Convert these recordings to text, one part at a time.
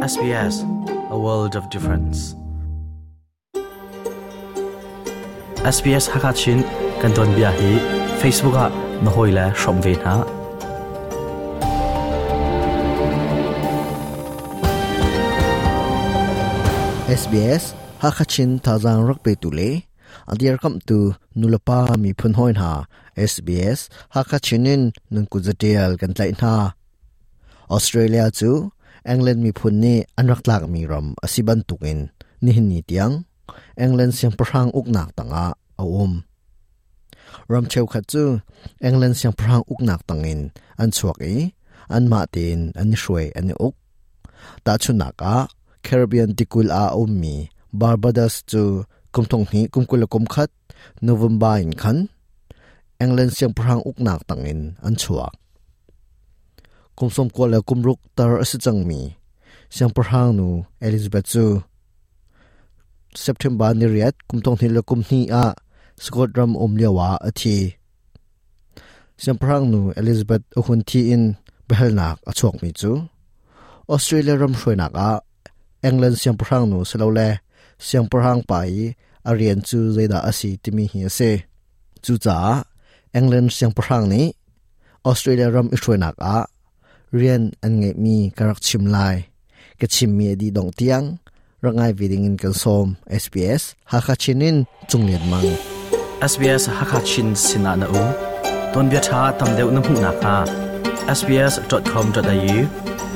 SBS, a world of difference. SBS Hakachin kan ton bia hi Facebook ah na hoi le hrom ve hna. SBS Hakachin thazang rak pe tu le a dirkamhtu nulepa miphun hawi hna SBS Hakha Chin in nan kut zatial kan tlaih hna. Australia cu England miphun nih an rak tlakmi ram a si bantukin nihin ni tiang England siangpahrang uknak tangah a um. Ram cheukhat cu England siangpahrang uknak tangin an chuak i anmah tein an i hruai an i uk. Tahchunhnak ah, Caribbean tikulh ah a ummi Barbados cu kum thong hnih kum 21 November in khan England siangpahrang uknak tangin an chuak. Kum 96 le kum ruk tar a si cangmi siangpahrang nu Elizabeth cu September ni riat kum thong hnih le kum hnih ah Scotland ram um lio ah a thi. Siangpahrang nu Elizabeth a hun thi in biahalnak a chuakmi cu Australia ram hruainak ah England siangpahrang nu silole siangpahrang pa i a rian cu zeidah a si timi hi a si. Cucaah England siangpahrang nih Australia ram i hruainak ah rian an ngeihmi ka rak chim lai. Ka chimmi a dih dongh tiang rak ngai ve ding in kan sawm. SBS Hakha Chin in Cunglian Mang. SBS Hakha Chin sinah na um. Tuanbia ṭha tam deuh na hmuh nakhnga sbs.com.au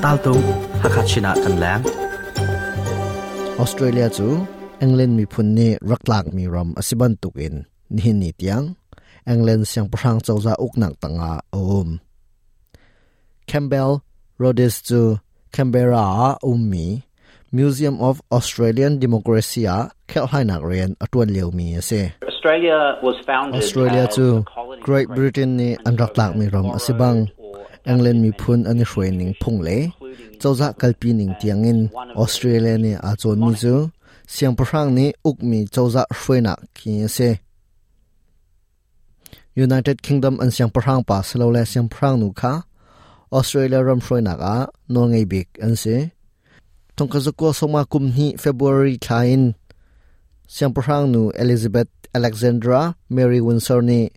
taltung Hakha Chin ah kan leng. Australia cu England miphun nih rak tlakmi ram a si bantukin nihin ni tiang England siangpahrang cozah uknak tangah a um. Campbell Rhodes cu Canberra ah a ummi Museum of Australian Democracy ah kherhhlainak rian a ṭuan liomi a si. Australia cu Great Britain nih an rak tlakmi ram a si bang England miphun an i hruai ning phung le cozah kalpi ning tiangin Australia nih aa cawnmi cu siangpahrang nih ukmi cozah hruainak khi a si. United Kingdom an siangpahrang pa silole siangpahrang nu kha Australia ram hruainak ah nawlngei bik an si. Thongkazakua soma kum hnih February thla in siangpahrang nu Elizabeth Alexandra Mary Windsor nih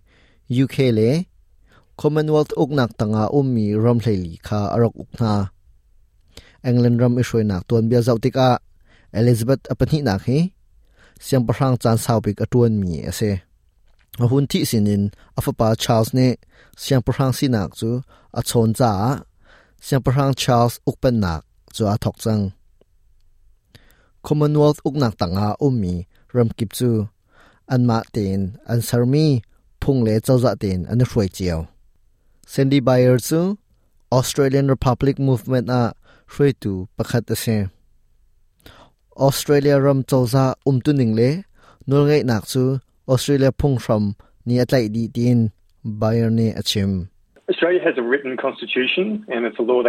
UK le Commonwealth uknak tangah ummi ram hleili kha a rak uk hna. England ram i hruainak tuanbia zoh tikah Elizabeth a pahnihnak hi siangpahrang caan saubik a ṭuanmi a si. A hun thih sinin a fapa Charles nih siangpahrang sinak cu a chawn caah Siangpahrang Charles ukpennak cu aa thawk cang. Commonwealth uknak tangah ummi ramkip cu anmah tein an sermi phung le cozah tein an i hruai cio. Sandy Bayer cu Australian Republic Movement ah hruaitu pakhat a si. Australia ram cozah umtuning le nawlngeihnak cu Australia phunghram nih a tlaih dih tiin Bayer nih a chim.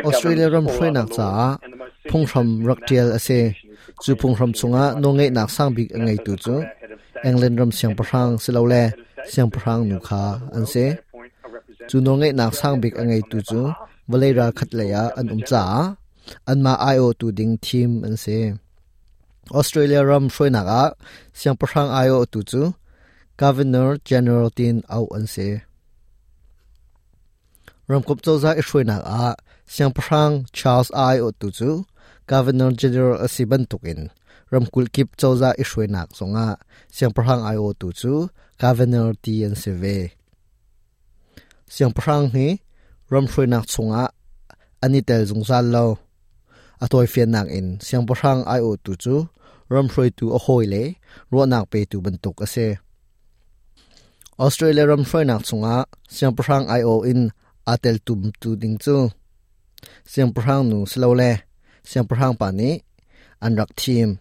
Australia ram hruainak caah phunghram rak ṭial a si. Cu phunghram chungah nawlngeihnak sangbik a ngeitu cu England ram siangpahrang silole siangpahrang nu kha an si. Cu nawlngeihnak sangbik a ngeitu cu vawlei ral khat lei ah an um caah anmah aiawhtu ding thim an si. Australia ram hruainak ah siangpahrang aiawhtu cu Governor General tiin auh an si. Ramkomh cozah i hruainak ah siangpahrang Charles aiawhtu cu Governor General a si bantukin ramkulh kip cozah i hruainak zongah siangpahrang aiawhtu cu Governor ti an si ve. Siangpahrang hi ram hruainak chungah an i tel zungzal lo. A tawifiannak in siangpahrang aiawhtu cu ram hruaitu a hawi le ruahnak petu bantuk a si. Australia ram hruainak chungah siangpahrang aiawh in aa teltumtu ding cu siangpahrang nu silole siangpahrang pa nih an rak thim.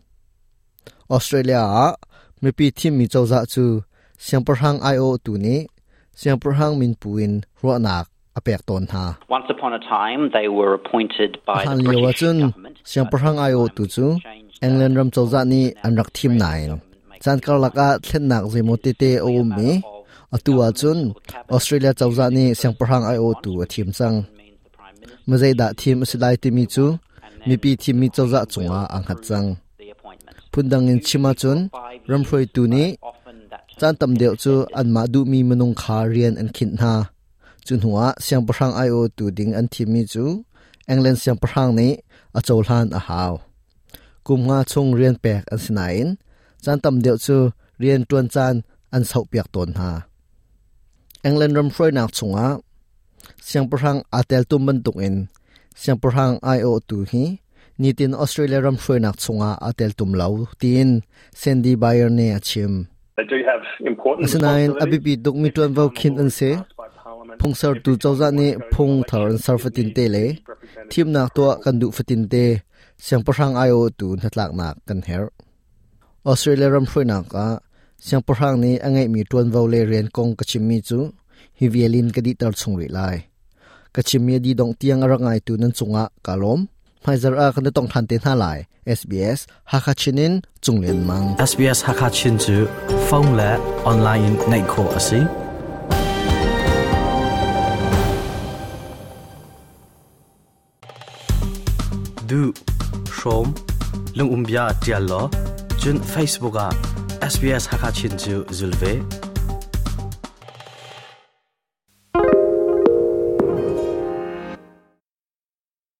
Australia ah mipi thimmi cozah cu siangpahrang aiawhtu nih siangpahrang minpu in ruahnak a pek tawn hna. Hlan lio ahcun siangpahrang aiawhtu cu England ram cozah nih an rak thim nain caan karlak ah thlennak zeimaw tete a um i atu ahcun Australia cozah nih siangpahrang aiawhtu a thim cang. Mazeidah thim a si lai timi cu mipi thimmi cozah cungah aa hngat cang. Phundang in chim ahcun ramhruaitu nih caan tam deuh cu anmah duhmi minung kha rian an khinh hna. Cu hnuah siangpahrang aiawhtu ding an thimmi cu England siangpahrang nih a cohlan a hau. Kum nga chung rian pek an si nain caan tam deuh cu rian ṭuan caan an sauhpiak tawn hna. England ram hruainak chungah siangpahrang aa teltum bantukin siangpahrang aiawhtu hi nitin Australia ram hruainak chungah aa teltum lo tiin Sandy Bayer nih a chim. Asinain a biapi tukmi ṭuanvo khinh an si. Phungsertu cozah nih phung thar an ser fatinte le thimnak tuah kan duh fatinte siangpahrang aiawhtu hnatlaknak kan herh. Australia ram hruainak ah siangpahrang nih a ngeihmi ṭuanvo le rian kong ka chimmi cu hi vial in ka dihter chung rih lai. Ka chimmi a dih dongh tiang a rak ngaitu nan cungah kaa lawm. Hmaizarh ah kan i tong ṭhan te hna lai. SBS Hakha Chin in Cung Lian Mang. SBS Hakha Chin cu phone le online in ngaih khawh a si. Du, hrawm, lungumbia ṭial law, cun Facebook ah SBS Hakha Chin cu zul ve.